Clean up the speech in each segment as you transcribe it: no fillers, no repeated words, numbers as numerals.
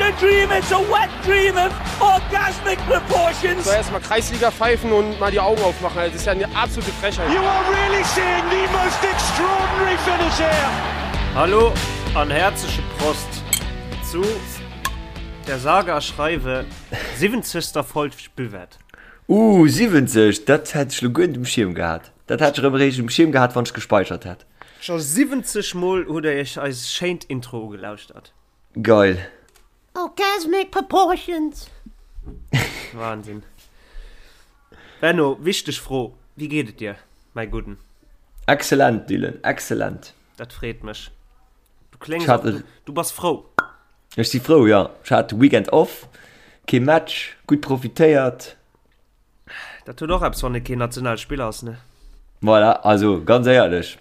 a dream, it's a wet dream of orgasmic proportions. So erstmal Kreisliga pfeifen und mal die Augen aufmachen. Das ist ja eine absolute Frechheit. You are really seeing the most extraordinary finish here. Hallo an häerzleche Prost zu der sage a schreiwe 70. Folg Buvette. Uh, 70, dat hätt ech lo guer net um Schierm gehat. Dat hätt ech erëm eréischt um Schierm gehat, wann ech gespeichert hätt. Scho 70 mol hutt der iech eis schéint Intro ugelauschtert. Geil. Orgasmic proportions! Wahnsinn. Benno, wichteg Fro, Wéi geet et dir, mäi Gudden? Excellent, Dylan, excellent. Dat freet mech. Du kléngs och, du, du bass frou. Ech si frou, jo. Ech hat de Weekend off, kee Match, gutt profitéiert. Dat huet och eppes, wann ee keen Nationalspiller ass, ne? Voilà, also ganz éierlech,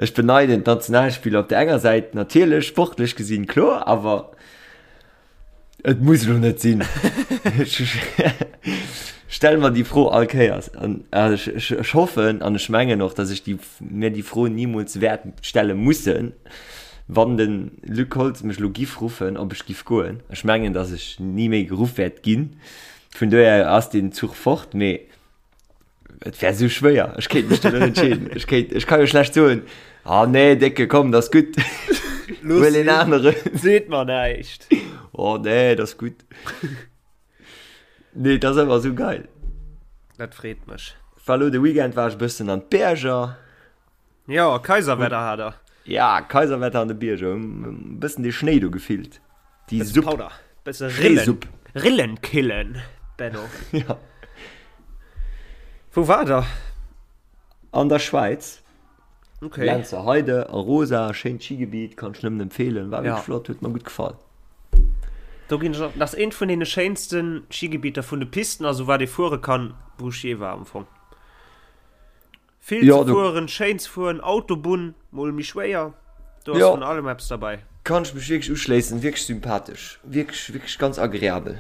ech beneiden d'Nationalspiller op der enger Säit natierlech, sportlech gesinn, kloer, awer et muss elo net sinn. Ech stelle mer déi Fro all Kéiers an ech, ech, ech hoffen an ech mengen och, datt ech déi, mir déi Fro nimools wäert stelle mussen, Wann de Luc Holtz mech elo giff ruffen, ob ech giff goen, ech mengen, datt ech ni méi geruff wäert ginn, vun dohier ass deen Zuch fort, mee et wär esou schwéier, ech kéint mech do net entscheeden. Ech kéint, ech ka jo schlecht soen, Ah nee, Décke, komm, dat ass gutt, huel een aneren. Seet mer näischt. Oh nee, dat ass gutt. Nee, dat ass ëmmer esou geil. Dat freet mech. War elo de Weekend war ech e bëssen an d'Berger. Jo, Kaiserwetter hat er. Ja, Kaiserwetter an de Bierger. E bëssen de Schnéi do gefillt. Déi Supp. Powder. Bësse Rillen. Rillen killen, Benno. Ja. Wou war der? An der Schwäiz. Okay. Lenzerheide, Arosa, schéint Skigebiet, kann ech nëmmen empfehlen. War wierklech flott, huet mer gutt gefall. Do ginn ech och, dat ass eent vun deene schéinste Skigebieter vun de Pisten, also wat ee fuere kann, wou ech jee war am Fong. Vill Ja, ze do fueren, schéin ze fueren, Autobunn mol méi schwéier, do ass Ja. vun allem eppes derbäi. Kann ech mech wierklech uschléissen, wierklech sympathesch, wierklech, wierklech ganz agreabel.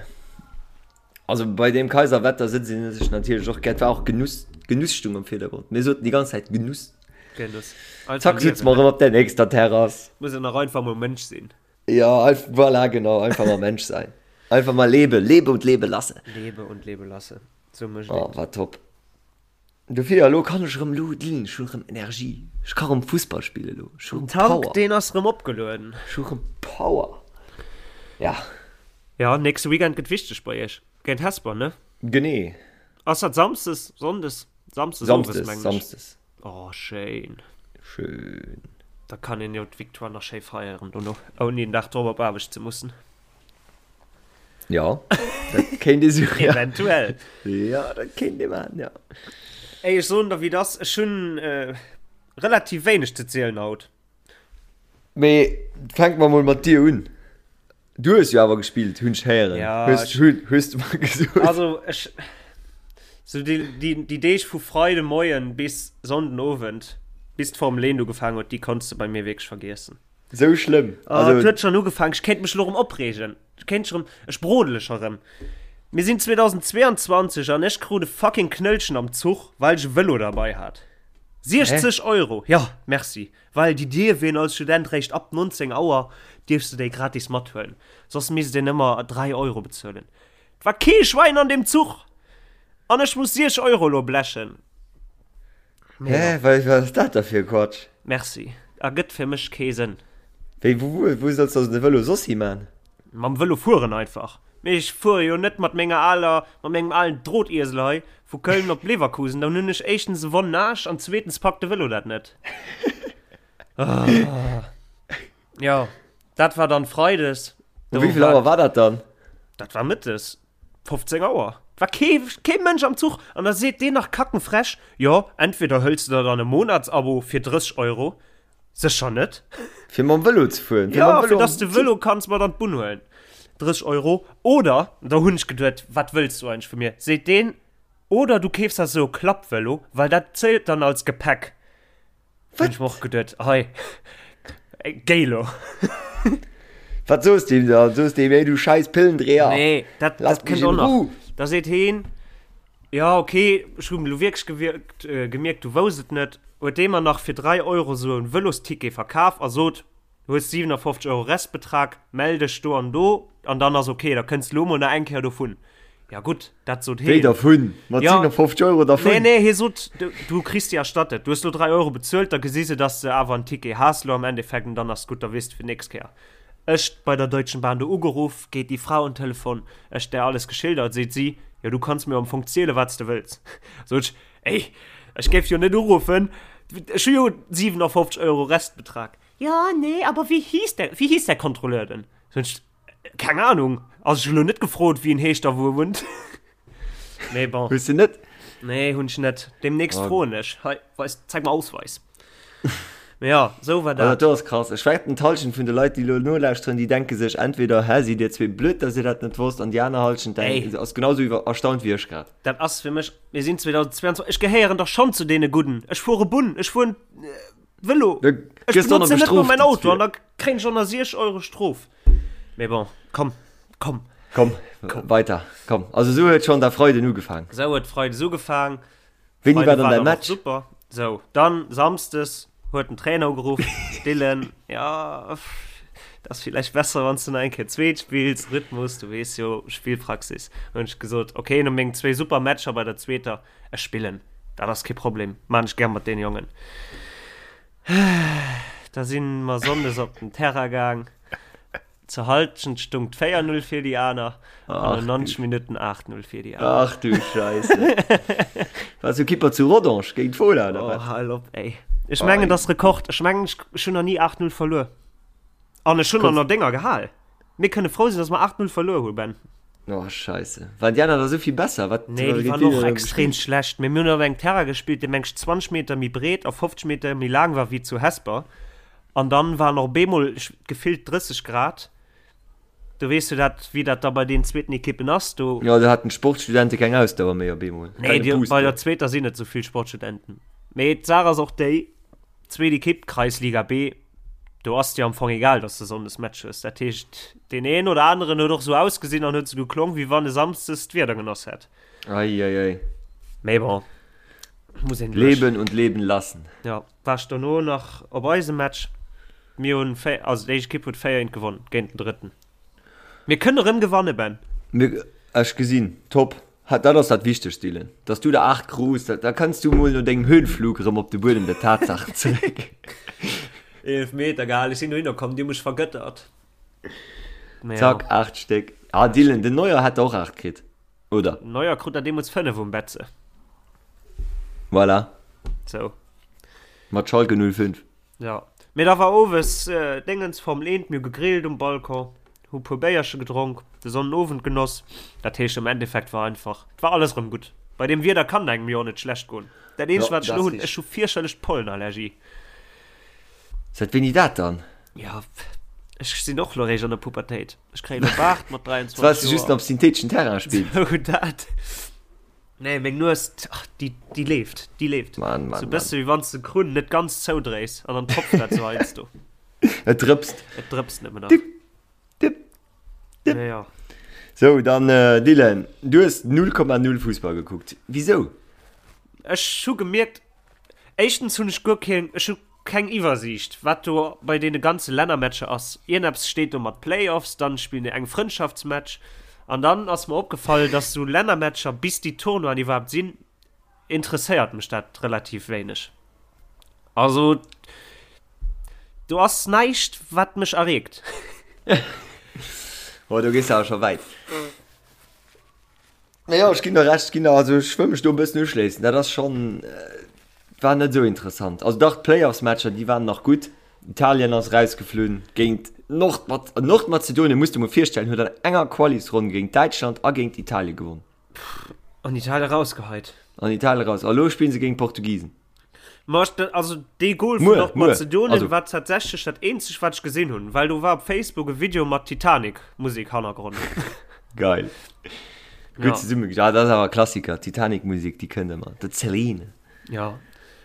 Also bei deem Kaiserwetter sëtzt een sech natierlech och gär, et war och Genuss, Genuss stung am Virdergrond, mir soten déi ganz Zäit Genuss. Genuss. Einfach Zack sëtze liewen, mer ne? erëm op der nächster Terrass. Muss een och einfach mol Mënsch sinn. Ja, einf voilà, genau, einfach mal Mensch sein. Einfach mal lebe, lebe und lebe lasse. Lebe und lebe lasse, sou mécht Oh, een et. war top. Dofir, elo kann ech erëm, elo Dylan, ech hunn erëm Energie. Ech ka erëm Fussball spillen elo. Ech hu Den erëm Tank, Power. deen ass erëm opgelueden. Ech hu erëm Power. Ja. Ja, nächste Weekend gëtt wichteg bei iech. Géint Hesper, ne? Genee. Ass dat Samsdes, Sonndes? Samsdes owes, Samsdes, mengen ech. Samsdes. Oh, schéin. Schön. Da kann een jo d'Victoire nach schéi feieren dono, ouni en Dag drop op Aarbecht ze mussen. Ja, dat kéint ee sou, ja. Eventuell. Ja, dat kéint ee maachen, ja. Ey, ech soen der wéi et ass, ech hunn relativ wéineg ze zielen haut. Mee fänke mer mol mat dir un. Du hues jo awer gespillt, hunn ech héieren. Ja, Hues, ech, hunn, hues du mer gesot. also ech, sou déi, déi, déi Deeg vu Freide Moien bis Sonnden Owend, bis d'Formel 1 ugefaangen huet, déi konns de bei mir wierklech vergiessen. Sou schlëmm? Oh, also, et huet schon ugefaangen. Ech kéint mech lo rëm opreegen. Ech kéint scho rëm, ech brodele scho rëm. Mir sinn 2022 an ech krut e fucking Knëllchen am Zuch, well ech e Vëlo derbei hat. 60 Euro! Ja, merci. Well déi dierf een als Student réischt ab 19 Auer dierfs de déi gratis mathuelen. Soss misst een ëmmer 3 Euro bezuelen. Et war kee Schwäin an deem Zuch! An ech muss 60 Euro lo blechen. Hä, wat ass dat da fir e Quatsch? Merci. Ergëtt fir mech kee Sënn. Wéi, wou, wou solls de de Vëlo soss hi man? Mam Vëlo fueren einfach. Mee ech fuere jo net mat menger aler, mat mengem alen Drotiesel hei vu Köln op Leverkusen. Dann hunn ech éischtens e wonnen Aarsch an zweetens packt de Vëlo dat net. Ah. Jo, dat war dann Freides. Um wéi vill Auer war dat dann? Dat war mëttes. 15 Auer. Et war kee, kee Mënsch am Zuch. An da seet deen nach kackenfrech, Jo, entweder hëls de der dann e Monatsabo fir 30 Euro, sécher net. Fir mam Vëlo ze fueren? Fir ja, fir dass de Vëlo kanns mat an d'Bunn huelen. 30 Euro. Oder, da hunn ech geduet, wat wëlls du eigentlech vu mir? Seet deen, oder du keefs der esou e Klappvëlo, well dat zielt dann als Gepäck. Wat? Hunn ech mer och geduet, hei, géi lo. Wat soos de him dann? Soos de him, ey du scheiß Pillendreher? Nee, dat, dat kënnt och nach. Da seet heen, ja okay, ech hunn elo wierklech gewierkt, äh, gemierkt, du wousst et net, huet dee mer nach fir 3 Euro sou en Vëlosticket verkaf a sot. Du hues 57 Euro Restbetrag, mell dech do an do an dann ass ok, da kënns de lo mol nach eng Kéier dovun. Ja gutt, dat sot heen. Wéi dervun? Mat 57 Euro dervun? Nee, nee, hie sot, du kriss déi erstattet. Du hues lo 3 Euro bezuelt, da gesi se, dass de awer en Ticket has lo am Endeffekt an dann ass gutt, da weess de fir d'nächst Kéier. Ech bei der Deutschen Bahn do ugeruff, geet déi Fra un d'Telefon, ech där alles geschildert, seet si, jo du kanns mir am Fong ziele wat s de wëlls. Sot ech, ey, ech géif jo net uruffen, ech hu jo 57 Euro Restbetrag. Ja, nee, aber wie hieß der, wie hieß der Kontrolleur denn? Sot ech, keng Ahnung, also ech hu lo net gefrot wéi en heescht a wou e wunnt. Mee bon. Hues de net? Nee, hunn ech net. Demnächst oh. froen ech. Hei, weis, zeig mal Ausweis. Mee ja, sou war dat. Also, dat ass krass. Ech wetten, d'Halschent vun de Leit, déi lo nolauschteren, déi denke sech entweder, hä, sidd dir zwee blöd, dass dir dat net wosst, an déi aner Halschent denkt, ass genau sou iwwer erstaunt wéi ech grad. Dat ass fir mech, mir sinn 2022, ech gehéieren dach schonn zu deene Gudden. Ech fuere Bunn, ech fueren Vëlo. Ech benotzen net mol mäin Auto an da kréien ech och nach 6 Euro Strof. Mee bon, komm, komm. Komm, komm. Weiter, komm. Also sou huet schonn der Freiden ugefaang. Sou huet Freides ugefaang. Wéini war dann däi Match? Super. Sou, dann Samsdes huet den Trainer ugeruff, Dylan, ja, dat ass villäicht besser, wann s du nach eng Kéier zweet spills, Rhythmus, du weess jo, Spillpraxis. Hunn ech gesot, okay, no mengen zwéi super Matcher bei der zweeter, ech spillen, dat ass kee Problem, maan ech gär mat deene Jongen. Da si mer Sonndes op den Terrain gaang. Zur Halschent stung 4 0 fir déi aner an no 90 Minutten 8 0 fir déi aner. Ach du Scheisse. Wars du Kipper zu Rodange géint Fola oder wat? Oh, hal op ey. Ech mengen dat ass Rekord. Ech mengen ech hunn nach ni 8 0 verluer. An ech hunn der nach Dénger gehal. Mir kënne frou sinn, dass mer 8 0 verluer hu Ben. Oh Scheisse. Waren déi aner da sou vill besser? Wat, Nee, déi waren och extrem schlecht. Mee mir hunn op engem Terrain gespillt, dee meng ech 20 Meter méi breet a 50 Meter méi laang war wéi zu Hesper. An dann waren och bemol gefillt 30 Grad. Du weess jo dat, wéi dat da bei deenen zweeten Ekippen ass. Do. Jo, do haten d'Sportstudente keng Ausdauer méi op eemol. Nee, déi, bei der zweeter sinn net esou vill Sportstudenten. Mee d'Saach ass och déi, zweet Ekipp, Kreisliga B, do ass dir am Fong egal, dass de Sonndes Match hues. Dat heescht, deen een oder aneren huet och esou ausgesinn an huet esou geklong, wéi wann e Samsdes d'Wieder genoss hätt. Ei, ei, ei. Mee bon, muss een duerch. Leben und leben lassen. Ja. War ech dono nach op eisem Match. Mir hunn 4, also déi éischt Ekipp huet 4 eent gewonnen géint den drëtten. Mir kënne rëm gewanne Ben. Mir, ech gesinn, top. Dat ass dat Wichtegst Dylan, dass du der 8 krus, da kanns du mol no dengem Höhenflug erëm op de Buedem der Tatsaachen zeréck. Eelefmeter gehal, ech sinn dohinner komm, déi hu mech vergëttert. Zack, 8 Stéck. Ah Dylan, den Neuer hätt der och 8 kritt. Oder? Neuer krut der deemools 5 um Betze. Voilà. Sou. Mat Schalke 05. Ja. Mee da war owes Déngens, Formel 1, mir hu gegrillt um Balcon, hu puer Béierche gedronk, de Sonnenowend genoss. Dat heescht am Endeffekt war einfach, et war alles erëm gutt. Bei deem Wieder kann et engem jo och net schlecht goen. Dat eenzegt wat ech elo hunn, ech hu fierchterlech d'Pollenallergie. Säit wéini dat dann? Ja, ech sinn och lo réischt an der Pubertéit. Ech kréien e Baart mat 23 Joer. Well just op syntheteschen Terrain spills. Sou dat. Nee, meng Nues, ach, déi, déi leeft, déi leeft. Mann, Mann, Sou bësse wéi wann s de Krunn net ganz zoudréis an dann tropft dat sou heiansdo. Et drëpst. Et drëpst nëmmen nach. Dip, dip, dip. Ja, ja. Sou, dann Dylan, du hues 0,0 Fussball gekuckt. Wisou? Ech hu gemierkt, éischtens hunn ech guer keen, ech hu Keng Iwwersiicht wat do bei deene ganze Lännermatcher ass. Ierneps steet do mat Playoffs, dann spillen déi eng Frëndschaftsmatch an dann ass mer opgefall dass sou Lännermatcher bis déi Tournoien iwwerhaapt sinn interesséiert mech dat relativ wéineg. Also do ass näischt wat mech erreegt. Oh do gees de awer scho wäit. Mee jo, ech ginn der Recht, ech ginn der, also ech wëll mech do e bëssen uschléissen. Dat ass schonn, war net esou interessant. Also dach, d'Playoffs-Matcher, déi waren nach gutt. Italien ass erausgeflunn géint Nordmaz-, Nordmazedonien, muss de mol virstellen, huet an enger Qualisronn géint Däitschland a géint Italien gewonn. An Italien erausgeheit. An Italien eraus. A lo spille se géint d'Portugisen. Ma ech, also dee Goal vun Nordmazedonien war tatsächlech dat eenzegt wat ech gesinn hunn, well do war op Facebook e Video mat Titanic Musek Hannergrond. Geil. Gutt ja. zesumme ja, dat ass awer Klassiker, Titanic Musek, déi kënnt ëmmer. De Celine. Ja.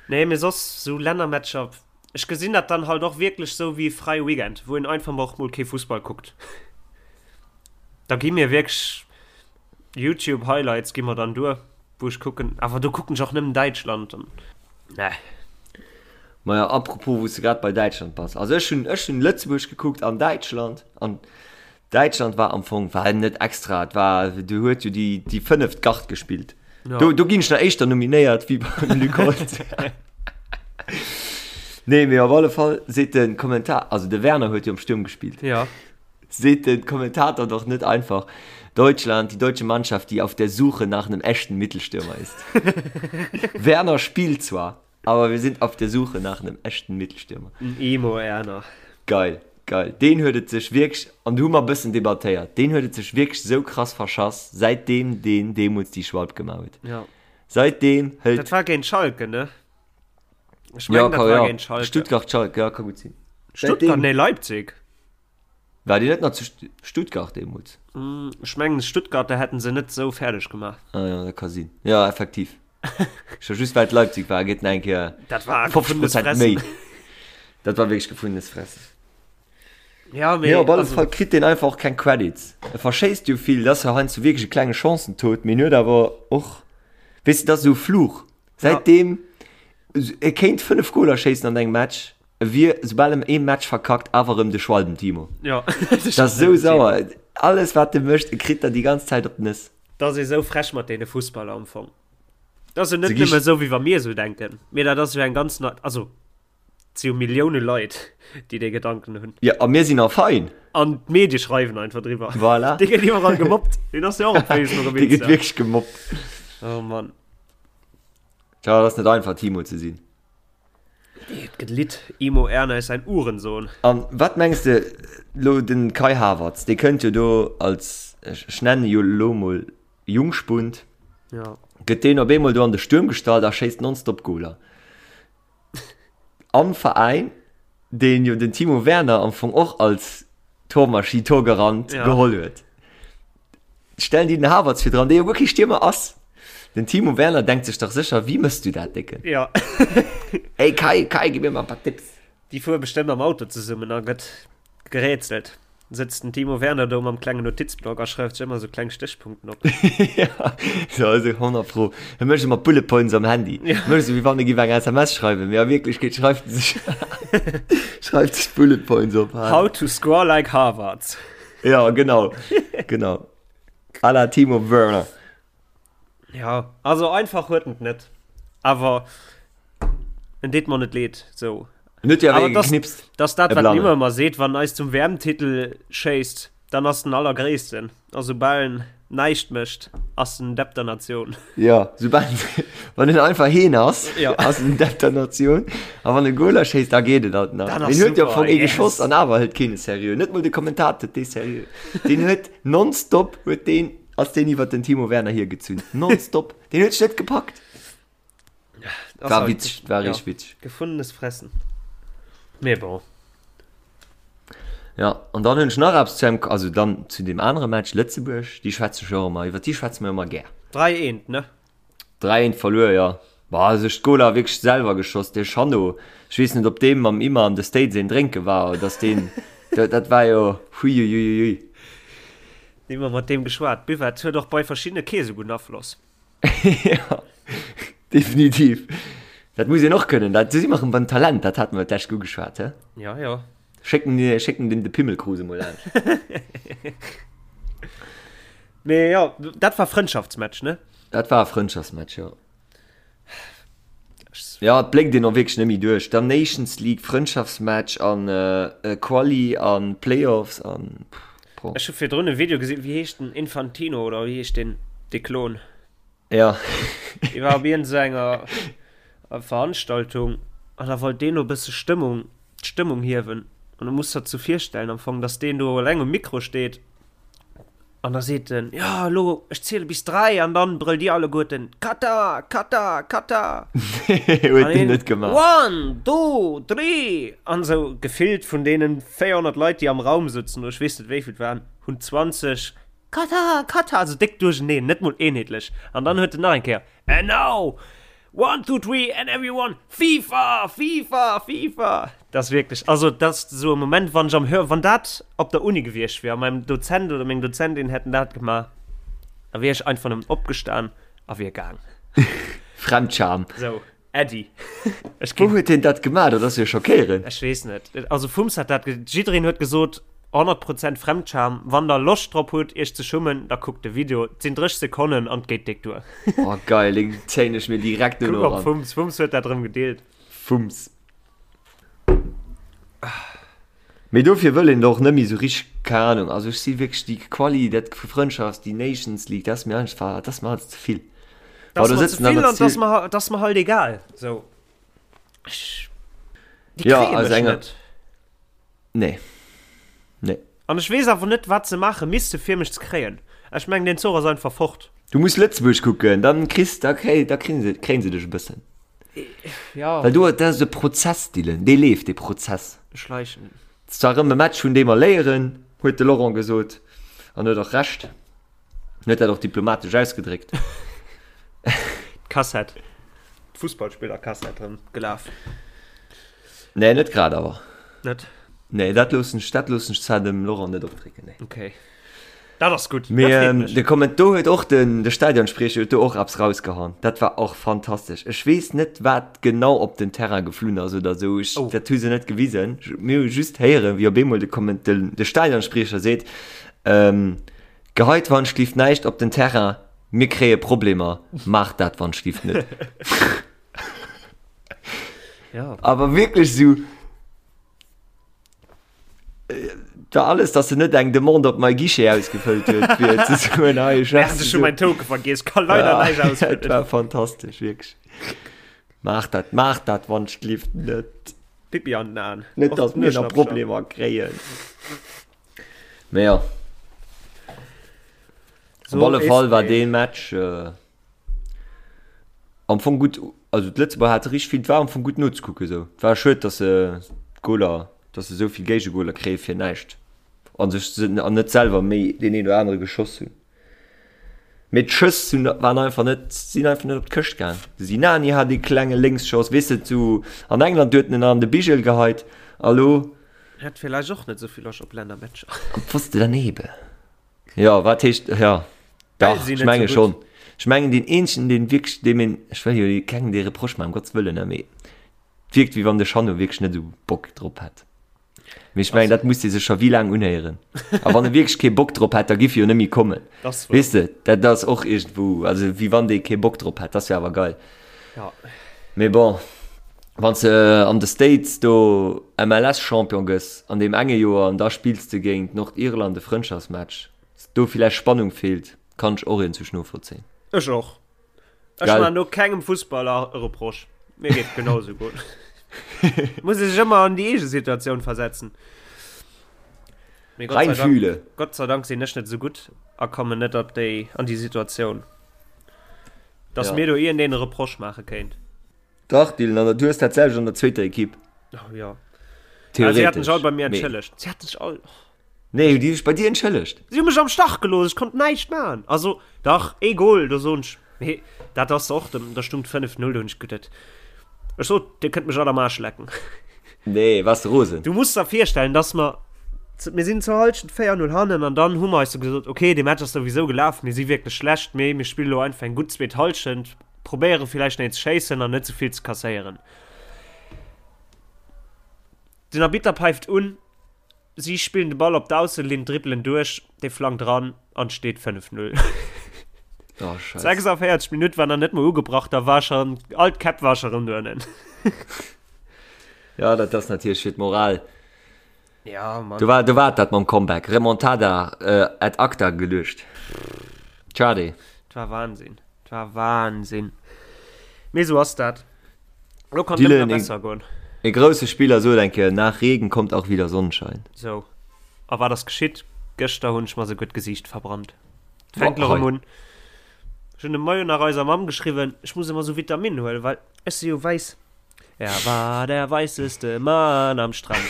Nee, mee soss sou Lännermatcher, ech gesinn dat dann halt och wierklech sou wéi e fräie Weekend, wou een einfach mol och mol kee Fussball kuckt. Da gi mir wierklech Youtube Highlights gi mer dann duer, wou ech kucken, awer do kucken ech och nëmmen Däitschland an ne. Maja, apropos, wou s de grad bei Däitschland bass. Also ech hunn, ech hunn Lëtzebuerg gekuckt an Däitschland an Däitschland war am Fong, war net extra, et war, do huet jo déi, déi fënneft Gard gespillt. Ja. Do, do ginn ech nach éischter nominéiert wéi beim Luc Holtz. Nee, mee op alle Fall seet de Kommentar, also de Werner huet jo am Sturm gespillt. Ja. Seet de Kommentator doch net einfach, Deutschland, die deutsche Mannschaft, die auf der Suche nach einem echten Mittelstürmer ist. Werner spielt zwar, aber wir sind auf der Suche nach einem echten Mittelstürmer. En Emo Erner. Geil, geil. Deen huet et sech wierklech, an do hu mer e bëssen debattéiert, deen huet et sech wierklech esou krass verschass, säitdeem deen deemools déi Schwalb gemaach huet. Ja. Säitdeem hëlt. Dat war géint Schalke, ne? Ech mengen, dat war géint Schalke. Stuttgart, Schalke, ja, ka gutt sinn. Stuttgart, nee, Leipzig. War déi net nach zu Stuttgart deemools? Ech mengen Stuttgarter hätten se net sou fäerdeg gemaach. Ah ja, dat ka sinn. Ja, effektiv. Scho just well et Leipzig war, geet en eng Kéier Dat war 50 gefundenes Prozent Fressen. méi. Dat war wierklech gefundenes Fressen. Ja, Mee mee op alle also, Fall kritt deen einfach och keng Credits. E verschéisst jo vill, dat ass jo heiansdo wierklech e klenge Chancentod, mee en huet awer och, weess de, dat ass esou e Fluch. ja, Säitdeem, e kéint 5 Goler schéissen an engem Match, E wier, soubal em ee Match verkackt, awer erëm de Schwalben Timo. Ja, Dat ass esou sauer. Alles wat e mécht, e kritt der déi ganz Zäit op d'Nëss. Dat ass ee sou frech mat deene Fussballer am Fong. Dat ass jo net Se gi nëmme esou wéi wa mir esou denken, mee dat ass jo eng ganz na-, also et si jo Millioune Leit, déi dee Gedanken hunn. Ja, a mir sinn a fein. An d'Medie schreiwen einfach driwwer. Voilà. Dee gëtt iwwerall gemobbt. Deen ass jo och op Facebook op Dee gëtt Insta. wierklech gemobbt. Oh Mann. Tja, et ass net einfach Timo ze sinn. Et gëtt Lidd, Imo Erna ist ein Uhrensohn. An wat mengs de lo den Kai Havertz, dee kënnt jo do als, ech nennen e jo lo mol Jungspund, Ja. gëtt deen op eemol do an de Stuerm gestallt a schéisst nonstop Goler am Veräin, deen jo den Timo Werner am Fong och als Tormaschinn, Torgarant Ja. geholl huet. Stellen déi den Havertz virdran, dee jo guer kee Stiermer ass. Den Timo Werner denkt sech dach sécher, Wéi mëss du dat, Décken? Ja. Ey Kai, Kai, gib mir mal e paar Tipps. Déi fuere bestëmmt am Auto zesummen a gëtt gerätselt. Sëtzt den Timo Werner do mam klengen Notizblock a schreift sech ëmmer sou kleng Stéchpunkten op. Ja, so, also 100 pro. E mécht ëmmer Bullet Points am Handy. Ja. Mécht sou, wéi wann e giff eng SMS schreiwen, mee a Wierklechkeet schreift e sech, schreift sech Bullet Points op. How to score like Havertz. Ja, genau. Genau. À la Timo Werner. Ja, also einfach huet en net. Awer en deet mer net leed, sou. En huet jo awer Awer ee das, geknipst. das dat, E wat en Blannen. ëmmer ëmmer seet, wann eis zum WM-Titel schéisst, dann ass den Allergréissten. A soubal en näischt mécht, ass en Depp der Natioun. Ja, soubal, wann en einfach heen ass, Ja. ass en Depp der Natioun. A wann e Goler schéisst, da geet et alt nach. Dat ass Deen huet jo am super, Fong ee yes. geschoss an awer hëlt keen e seriö. Net mol de Kommentator huet dee seriö. Deen huet nonstop huet deen, ass deen iwwer den Timo Werner hiergezunn. Nonstop. Deen huet sech net gepackt. Das War halt, witzeg, war ja, richtig witzeg. Gefundenes Fressen. Mee bon. Ja, an dann hunn ech nach eppes zu engem, also dann zu deem anere Match, Lëtzebuerg, déi schwätze ech och ëmmer, iwwer déi schwätze mer ëmmer gär. 3 eent, ne? 3 eent verluer, jo. Bah, sech d'Goler wierklech selwer geschoss, dee Chanot, ech weess net, ob deem mam Imma an de States een drénke war, oder dass deen, dat, dat war jo, huiuiuiui. Nimmer mat deem geschwat. Buvette huet och bei verschiddene kee sou gudden Afloss. Ja, definitiv. Dat muss een och kënnen. Dat, do si mer erëm beim Talent, dat hate mer d'lescht ugeschwat, he? Ja, ja. Schécken, schécken dem de Pimmelkrus emol laanscht. Mee jo, dat war Frëndschaftsmatch, ne? Dat war e Frëndschaftsmatch, jo. Ja, et bléckt een och wierklech net méi duerch. Dann Nations League, Frëndschaftsmatch an Quali an Playoffs an pff. Ech hu virdrun e Video gesinn, wéi heescht den, Infantino oder wéi heescht deen, dee Klon? Ja. Dee war op iergend esou enger Veranstaltung an da wollt deen do e bësse Stëmmung, d'Stëmmung hiewen. An du muss der zu virstellen am Fong, dass deen do eleng um Mikro steet An da seet en, jo, elo, ech ziele bis 3 an dann brëllt dir alleguerten, Katar, Katar, Katar! Huet deen net gemaach. One, two, three! An esou gefillt vun deenen 400 Leit, déi am Raum sëtzen, oder ech weess net wéi vill et waren, hunn 20 Katar, Katar, esou déck duercheneen, net mol eenheetlech. An dann huet en nach eng Kéier, And now, one, two, three, and everyone, FIFA, FIFA, FIFA! Dat ass wierklech, also dat ass esou e Moment, wann ech am Hör, wann dat op der Uni gewiescht wier a mäin Dozent oder meng Dozentin hätten dat gemaach, da wier ech einfach nëmmen opgestan a wier gaang. Fremdscham. Esou. Äddi. Ech Wou huet hien dat gemaach? Dat ass jo schockéierend. Ech weess net. Also Fums hat dat, jiddereen huet gesot 100 Prozent Fremdscham. Wann der Loscht drop hutt iech ze schummen, da kuckt de Video. Et sinn 30 Sekonnen an et geet déck duer. Oh geil, deen zéien ech mir direkt duerno eran. Kuck op Fums, Fums huet dat erëm gedeelt. Fums. Mee dofir wëll een och net méi sou richteg, keng Ahnung, also ech si wierklech déi Quali, dat Frëndschafts, déi Nations League, dat ass mir einfach, dat ass mir alles ze vill. Dat ass mer ze vill an dat ass mer, dat ass mer halt egal. Sou. Ech, déi kréie mech net. Nee. Nee. An ech weess awer net, wat se maache misste fir mech ze kréien. Ech mengen, deen Zuch ass einfach fort. Du muss Lëtzebuerg kucken, dann kriss, da kréi, da kréien se, kréien se dech e bëssen. Ja. Well do, dat ass e Prozess, Dylan, dee leeft, dee Prozess. Schleichen. Et ass zwar erëm e Match, vun deem mer léieren, huet de Laurent gesot, an huet och Recht. En huet dat och diplomatesch ausgedréckt. D'Kassett, d'Fussballspillerkassett erëm gelaf. Nee, net grad awer. Net? Nee, dat loossen ech, dat loossen ech zwar dem Laurent net opdrécken, nee. Okay. Dat ass gutt. Mee ähm, de Komment do huet och den de Stadionspriecher huet do och eppes rausgehauen. Dat war och fantastesch. Ech weess net wat genau op den Terrain geflunn ass oder sou. Ech, oh. Dat hu se net gewisen. Mir hu just héieren, wéi op eemol de Komment de, de Stadionspriecher seet, ähm, Geheit wannschlift näischt op den Terrain, mir kréie Problemer, maacht dat wannschlift net. Ja. Awer wierklech sou da alles, dass en net eng Demande op my Guichet ausgefëllt huet, fir ze soen, hei, ech Merde, ech hu mäin Token vergiess, kann leider Ja, näischt dat ausfëllen. war fantastesch, wierklech. Maach dat, maach dat wannschlift net. Pipi an den Aen. Net, Och dass mir nach Nueschnappcher. Problemer kréien. Mee jo. So Op alle Fall war ist dee Match äh, am Fong gutt, also d'Lëtzebuerger hate richteg vill, et war am Fong gutt nozekucken esou. Et war schued, datt se d'Goler, datt se esou vill Géigegoler kréie fir näischt a sech an net selwer méi deen een oder anere geschoss hunn. Mee d'Schëss hunn waren einfach net, sinn einfach net op d'Këscht gaang. De Sinani hat ee klenge Lénksschoss, weess de, zu an England huet en en an de Bigel geheit a lo Hat villäicht och net esou vill Loscht op Lännermatcher. Am Pfoste daneben. Jo, wat heescht, jo, dach, ech menge schonn. Ech mengen deen eenzegen, deen wierklech, deem een, ech wëll jo kengem dee Reproche maachen, um Gottes Wëllen, ne, mee et wierkt, wéi wann de Jeannot wierklech net esou Bock drop hätt. Mee ech mengen, dat muss dee sech scho wéi laang unhéieren. A wann e wierklech kee Bock drop hätt, da giff e jo net méi kommen. Weess de, dat ass och iergendwou, also wéi wann dee kee Bock drop hätt, dat wär awer geil. Ja. Mee bon, wann s de an de States do MLS-Champion gëss an deem enge Joer an da spills de géint Nordirland e Frëndschaftsmatch, dass do villäicht Spannung feelt, kann ech och iergendwou novollzéien. Ech och. Ech Gell? man do kengem Fussballer e Reproche. Mir geet genau sou gutt. Muss ee sech ëmmer an déi eege Situatioun versetzen. Mee Gott sei Dank, Reinfühle. Gott sei Dank sinn ech net sou gutt a kommen net op déi, an déi Situatioun. Dass Ja. mir do iergendeen e Reproche maache kéint. Dach, Dylan, an du hues dat selwecht an der zweeter Ekipp. Oh, ja. Ah, si haten sech all Theoretesch. bei mir Mee. entschëllegt. Si haten sech all. Nee, hu déi sech bei dir entschëllegt? Si hu mech am Stach gelooss, ech konnt näischt maachen. Also, dach, ee Goal, do soen ech, mee dat ass och, da stung et 5, 0, do hunn ech geduet, ech sot, dir kënnt mech all am Aarsch lecken. Nee, waars de rosen? Du muss der virstellen, dass mer, mir sinn zur Halschent 4, 0 hannen an dann hu mer eis sou gesot, okay, dee Match ass souwisou gelaf, mir si wierklech schlecht, mee mir spille lo einfach eng gutt zweet Halschent, probéiere villäicht nach een ze schéissen an net sou vill ze kasséieren. Den Arbitter päift un, si spillen de Ball op d'Ausselinn, dribbelen duerch, dee flankt eran an et steet 5, 0. Oh, Scheiße. 46 Minutt war nach net mol ugebrach, da war schon, all d'Käpp war scho rëm doënnen. Ja, dat ass natierlech fir d'Moral. Ja, Mann. Do war, do war dat mam Comeback. Remontada äh, ad acta geluecht. Schade. Et war Wahnsinn. Et war Wahnsinn. Mee sou ass dat. Lo kann Dylan, et ëmmer e- besser goen. E grousse Spiller sot eng Kéier, nach Regen kommt auch wieder Sonnenschein. Sou. A wat ass geschitt? Gëschter hunn ech mer souguer d'Gesiicht verbrannt. Et fänkt Boah, lo rëm hei. un. Ech hunn de Moien nach eiser Mamm geschriwwen, ech muss ëmmer sou Vitaminen huelen, well ech si jo wäiss. Er war der weisseste Mann am Strand.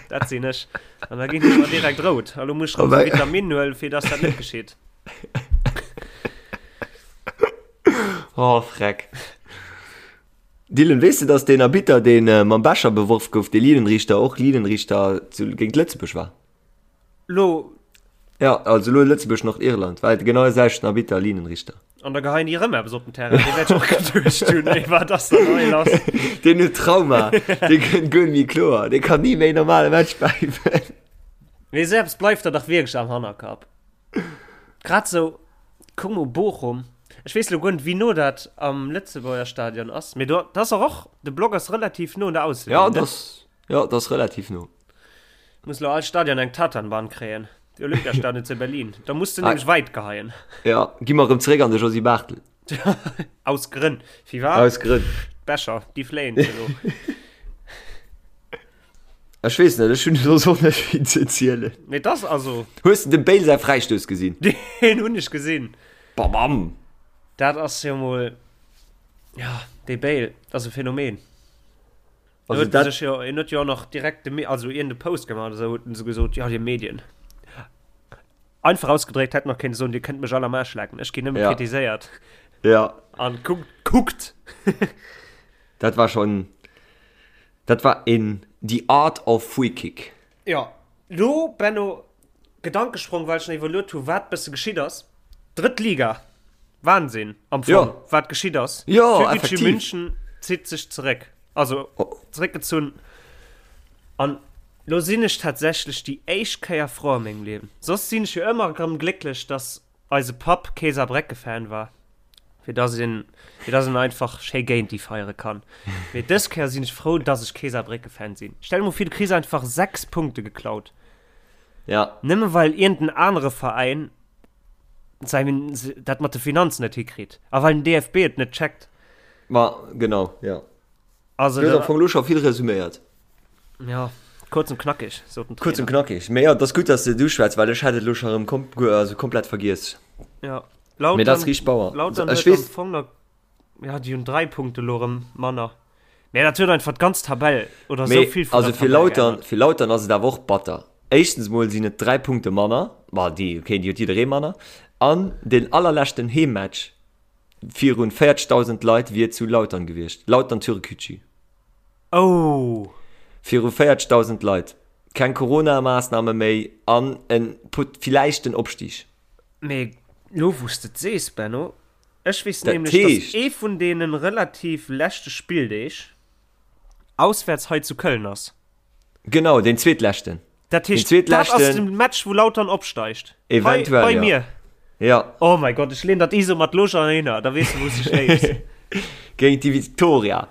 Dat sinn ech. An da ginn ech mer direkt rout. A lo muss ech rëm sou Vitaminen huelen, fir dass dat net geschitt. Oh, freck. Dylan, weess de, dass deen Arbitter, deen mam Becher beworf gouf, dee Linienrichter, och Linienrichter zu, géint Lëtzebuerg war? Lo. Ja, also lo Lëtzebuerg, Nordirland, war et genau de selwechten Arbitter, Linienrichter. An da geheien déi erëm eppes op den Terrain. Dee wäert ech och geduecht hunn, ey, wat ass denn hei lass? Deen huet Trauma. Dee kënnt guer net méi kloer. Dee kann ni méi normale Match päifen. Mee esou eppes bleift der dach wierklech am Hannerkapp. Grad sou, kuck mol Bochum. Ech weess lo guer net, wéi no dat am Lëtzebuerger Stadion ass. Mee do, dat ass och, och, de Block ass relativ no un der Ausselinn, Ja, ne? dat ass, ja, dat ass relativ no. Muss lo all Stadion eng Tatanbahn kréien. De Olympiastadion zu Berlin. Da muss du ah. nämlech weit geheien. Ja, gi mer erëm zeréck an de Josy Barthel. Aus Grënn. Wie war? Aus Grënn. Becher, déi fléien elo. Ech weess net, ech hunn soss och net vill ze erzielen. Mee das also. Hues de dem Bale säi Fräistouss gesinn? Deen hunn ech gesinn. Babam! Dat ass jo mol. Ja, dee Bale, dat ass e Phänomen. Also huet dat sech jo, en huet jo och nach direkt de, also iergend e Post gemaach oder sou, huet en sou gesot, jo, dir Medien. Einfach ausgedréckt hätt nach kéinte soen, dir kënnt mech all am Aarsch lecken, ech ginn nëmme Ja. kritiséiert. Ja. An kuckt, kuckt! Dat war schon, dat war een The Art of Free Kick. Jo, lo Benno, Gedankesprong, well ech nach iwwerluet hu wat bësse geschitt ass. Drëtt Liga, Wahnsinn am Fong, Ja. wat geschitt ass. Ja, Türkgücü effektiv. München zitt sech zeréck, also Oh. zeréckgezunn. An lo sinn ech tatsächlech déi éischt Kéier frou a mengem Liewen. Soss sinn ech jo ëmmer erëm glécklech, dass eise Papp kee Saarbrécke-Fan war, fir dass een, fir dass een einfach schéi géint déi feiere kann. Mee dës Kéier sinn ech frou, dass ech kee Saarbrécke-Fan sinn. Stell dir mol vir, du kriss einfach 6 Punkte geklaut. Ja. Nëmme well iergend en anere Veräin säin, dat mat de Finanzen net hikritt a well den DFB et net checkt. Ma genau, ja. Also, Du hues am Fong elo scho vill resuméiert. Ja, kurz und knackig, sot den Kurz und Trainer. knackig. Mee jo, et ass gutt, dass de et uschwätz, well ech hätt et elo scho erëm kom also komplett vergiess. Ja, Mee dat ass Lautern, riicht Bauer. Lautern Ech huet am weess. Fong nach, ja, déi hunn 3 Punkte elo erëm manner. Mee dat huet einfach d'ganz Tabell oder esou Mee vill vun also der fir Tabell Lautern, geännert. fir Lautern ass et awer och batter. Éischtens mol sinn et 3 Punkte manner, ma déi, okay, déi huet jidderee manner, an deen allerleschten Heemmatch virun 40.000 Leit wier zu Lautern gewiescht, Lautern Türkgücü. Oh! Viru 40.000 Leit, keng Corona-Maassname méi an en pot villäicht den Opstig. Mee lo wou s de et sees, Benno, ech weess Dat nämlech, dass heescht. ee vun deene relativ leschte Spilldeeg auswäerts hei zu Köln ass. Genau, deen zweetleschten. Dat Den heescht, dat ass zweetleschten. de Match, wou Lautern opsteigt. Hei Eventuell, bei ja. mir. Ja. Oh mäi Gott, ech leen dat ISO mat lo schon hinner, da weess de, wou s de schléifs. Géint déi Victoria.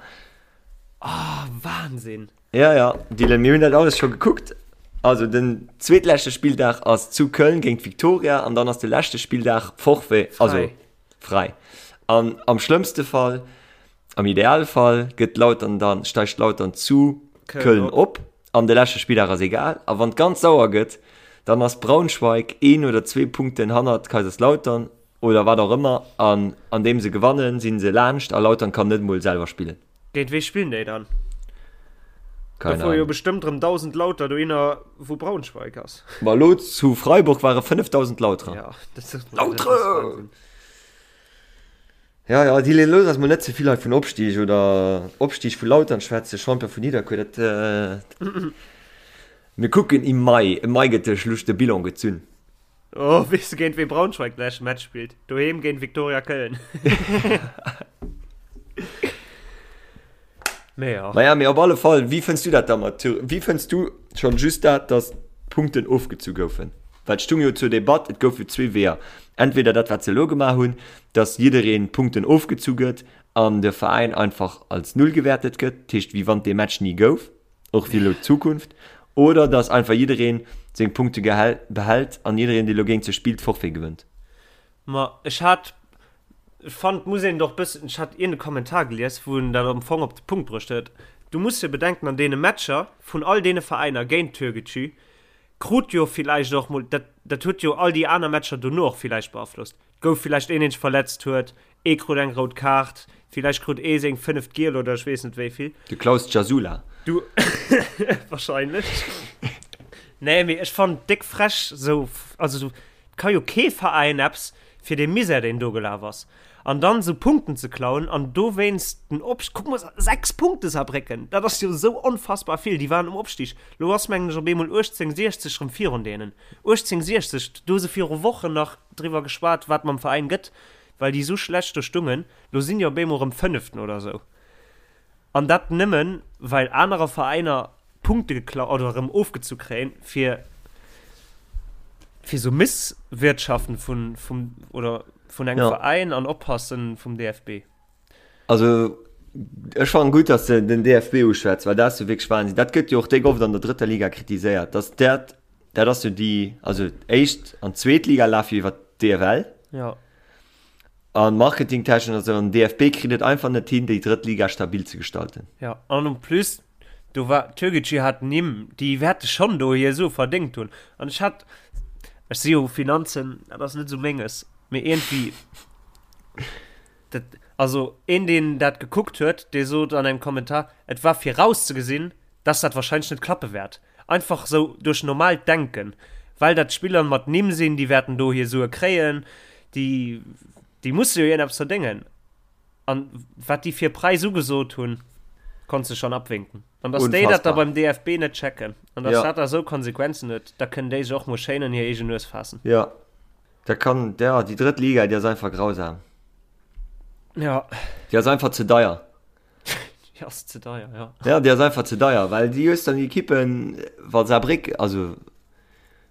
Ah, Wahnsinn. Ja, ja, Dylan, mir hunn dat alles scho gekuckt. Also den zweetleschte Spilldag ass zu Köln géint Victoria an dann ass de leschte Spilldag Forfait, also Fräi. fräi. An am schlëmmste Fall, am Idealfall gëtt Lautern dann, steigt Lautern zu Köln Köln op. op an de leschte Spilldag ass egal. A wann et ganz sauer gëtt, dann ass Braunschweig een oder zwee Punkten hannert Kaiserslautern oder wat och ëmmer an andeem se gewannen, si se laanscht a Lautern kann net emol selwer spillen. Géint wee spillen déi dann? Da Keine fuere jo Ahnung. bestëmmt rëm 1.000 Lauter dohinner, wou Braunschweig ass. Ma elo zu Freiburg ware 5.000 Lauterer. Ja, dat ass Lautere! Wahnsinn. Ja, ja, déi looss eis mol net ze vill hei vun Opstig oder Opstig vu Lautern schwätzen, Champion vun Nidderkuer, dat mir kucken im Mai, im Mai gëtt de Schluss, de Bilan gezunn. Oh, weess de géint wee Braunschweig de leschte Match spillt? Doheem géint Viktoria Köln. Mee ja. Naja, mee op alle Fall, wéi fënns du dat da mat Thür-, wéi fënns du schonn just dat, datt d'Punkten ofgezu goufen? Well et stung jo zur Debatt, et goufe zwee Weeër, entweder dat wat se elo gemaach hunn, datt jiddereen Punkten ofgezu gëtt an de Veräin einfach als Null gewäertet gëtt, dat heescht wéi wann dee Match ni gouf, och fir elo d'Zukunft, oder datt einfach jiddereen seng Punkte behält an jiddereen dee elo géint se spillt Forfait gewënnt. Ma ech hat, ech fand, muss een doch bëssen, ech hat iergend e Kommentar gelies, wou en dat am Fong op de Punkt bruecht huet, du muss jo bedenken, an deene Matcher vun all deene Veräiner géint Türkgücü krut jo villäicht och mol, dat, dat huet jo all déi aner Matcher dono och villäicht beaflosst, gouf villäicht een, deen sech verletzt huet, ee krut eng rout Kaart, villäicht krut ee seng fënneft Giel oder ech weess net wéi vill. De Klaus Gjasula. Du, wahrscheinlech. Nee, mee ech fannen et déck frech sou, also sou, et ka jo kee Veräin eppes fir dee Misär deen do gelaf ass an dann sou Punkten ze klauen an dowéinst den Opst-, kuck mol, 6 Punkte Saarbrécken, dat ass jo sou onfassbar vill, déi waren um Opstig, lo ass mengen ech op eemol 18, 60 rëm virun deenen, 18, 60, do hu se viru Wochen nach driwwer geschwat wat mam Veräin gëtt. well déi esou schlecht do stungen. Lo sinn déi op eemol erëm Fënneften oder esou. An dat nëmmen, well anerer Veräiner Punkte geklau oder erëm ofgezu kréien, fir fir esou Misswirtschaften vun vum oder vun engem Ja. Veräin an Oppassen vum DFB. Also ech fannen gutt, dass de den DFB uschwätz, well dat ass jo wierklech Wahnsinn. Dat gëtt jo och déck oft an der drëtter Liga kritiséiert, dass dat, dat ass jo déi, also éischt an zweet Liga lafe jo iwwer d'DFL. Ja. An marketingtechnesch an esou, an den DFB kritt et einfach net hin, déi drëtt Liga stabil ze gestalten. Ja, an en plus, do war, Türkgücü hat Nimm, déi wäerte schonn do hir Sue verdéngt hunn. An ech hat, ech si jo Finanzen, dat ass net esou menges, mee iergendwéi, dat, also een, deen dat gekuckt huet, dee sot an engem Kommentar, et war virauszegesinn, dass dat wahrscheinlech net klappe wäert. Einfach sou duerch normaalt Denken, well dat Spiller mat Nimm sinn, déi wäerten do hir Sue kréien, déi, déi musse jo iergendeppes verdéngen. An wat déi fir Präis ugesot hunn, konns de schonn abwinken. An dass déi dat da Unfassbar. beim DFB net checken an dass Ja. dat da sou Konsequenzen huet, da kënnen déi sech och mol schéin an hir eegen Nues faassen. Ja, dat kann, ja, déi drëtt Liga, déi ass einfach grausam. Ja. Déi ass einfach ze deier. Déi ass ze deier, ja. Ja, déi ass einfach ze deier, well déi hues dann déi Ekippen, wa Saarbréck, also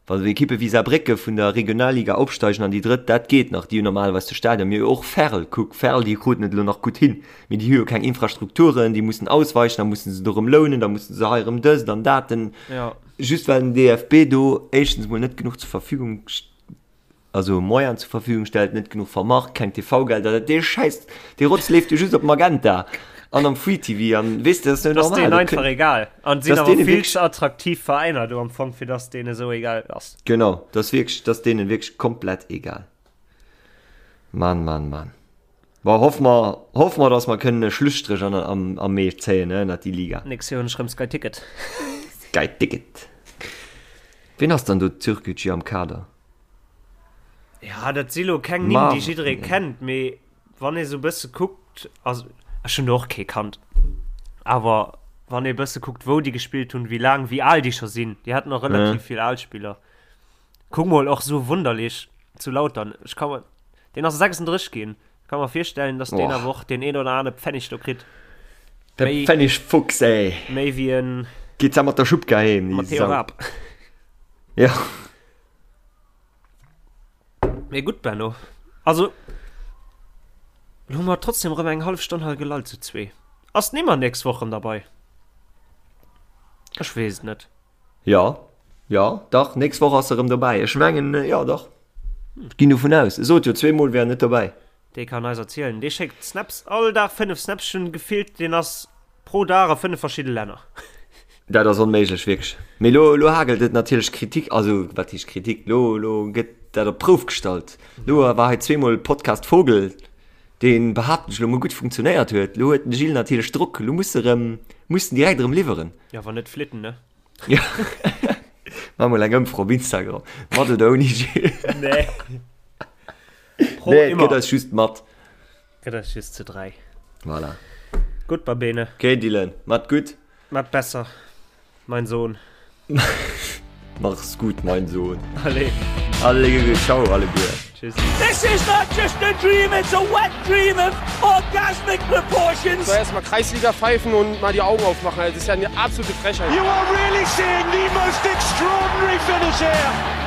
wa sou Ekippe wéi Saarbrécke vun der Regionalliga opsteigen an déi drëtt, dat geet nach, déi hunn normalerweis de Stadion, mee och Verl, kuck, Verl, déi kruten et elo nach gutt hin, mee déi hu jo keng Infrastrukturen, déi mussen ausweichen, da mussen se do erëm lounen, da mussen se hei erëm dëst an dat, den, Ja. just well den DFB do éischtens mol net genuch zur Verfügung also Moyen zur Verfügung stellt, net genuch vermarkt, keng TV-Gelder, dat dee Schäiss, dee Rotz leeft jo just op Magenta an am Free TV an weess de, dat ass net Das normal. denen Dat einfach kënnt- egal. An sinn Das awer denen vill wirklich- ze attraktiv Veräiner do am Fong, fir dass denen esou egal ass. Genau, dat ass wierklech, dat ass deenen wierklech komplett egal. Mann, Mann, Mann. Bon, hoffe mer, hoffe mer, dass mer kënnen e Schlusstréch an, am, am Mee zéien, ne, ënnert déi Liga. Nächst Joer hunn ech rëm Sky Ticket. Sky Ticket. Ween ass dann do Türkgücü am Kader? Ja, dat si lo keng Nimm, déi jidderee kennt, mee wann ee sou bësse kuckt, also ech hunn do och kee kannt, awer wann ee bësse kuckt, wou déi gespillt hunn, wéi laang, wéi al déi scho sinn, déi haten och relativ vill al Spiller. Kuck mol, och sou wunderlich zu Lautern, ech ka mer, deen ass 36 ginn, ech ka mer virstellen, datt deen awer och deen een oder anere Pfennig do kritt. De Pfennigfuchs, ey! Méi wéi en. Geet da mat der Schubka heem, déi Matteo Sau. Raab. Ja. Mee gutt, Benno. Also, lo hu mer trotzdem erëm eng hallef Stonn hei gelallt zu zwee. Ass d'Nimmer nächst Woch erëm derbei? Ech weess et net. Jo, jo, dach, nächst Woch ass se erëm dobäi. Ech mengen, jo, dach. Ech ginn dovun aus. E sot jo zweemol, wär en net dobäi. Dee kann eis erzielen. Dee schéckt Snaps, all Dag 5 Snaps. Ech hunn gefillt, deen ass pro Dag a 5 verschidde Länner. Dat ass onméiglech, wierklech. Mee lo, lo hagelt et natierlech Kritik, also wat heescht Kritik, lo, lo gëtt dat op d'Prouf gestallt. Lo war hei zweemol Podcast Vogel, deen, behaapten ech lo mol, gutt funktionéiert huet. Lo huet den Gilles natierlech Drock, lo muss e rëm, muss en direkt erëm liwweren. Jo, wann net flitten, ne? Ja. Maach mol eng Ëmfro op Instagram, mat oder ouni Gilles? Nee. Pro nee, et gëtt eis just mat. Gëtt eis just zu 3. Voilà. Gutt, Babene. Okay, Dylan, mat gutt. Mat besser, mein Sohn. Mach's gut, mein Sohn. Allez. Allez, ciao, alleguer. Tschüss. This is not just a dream, it's a wet dream of orgasmic proportions. So erstmal Kreisliga pfeifen und mal die Augen aufmachen. Das ist ja eine absolute Frechheit. You are really seeing the most extraordinary finish here.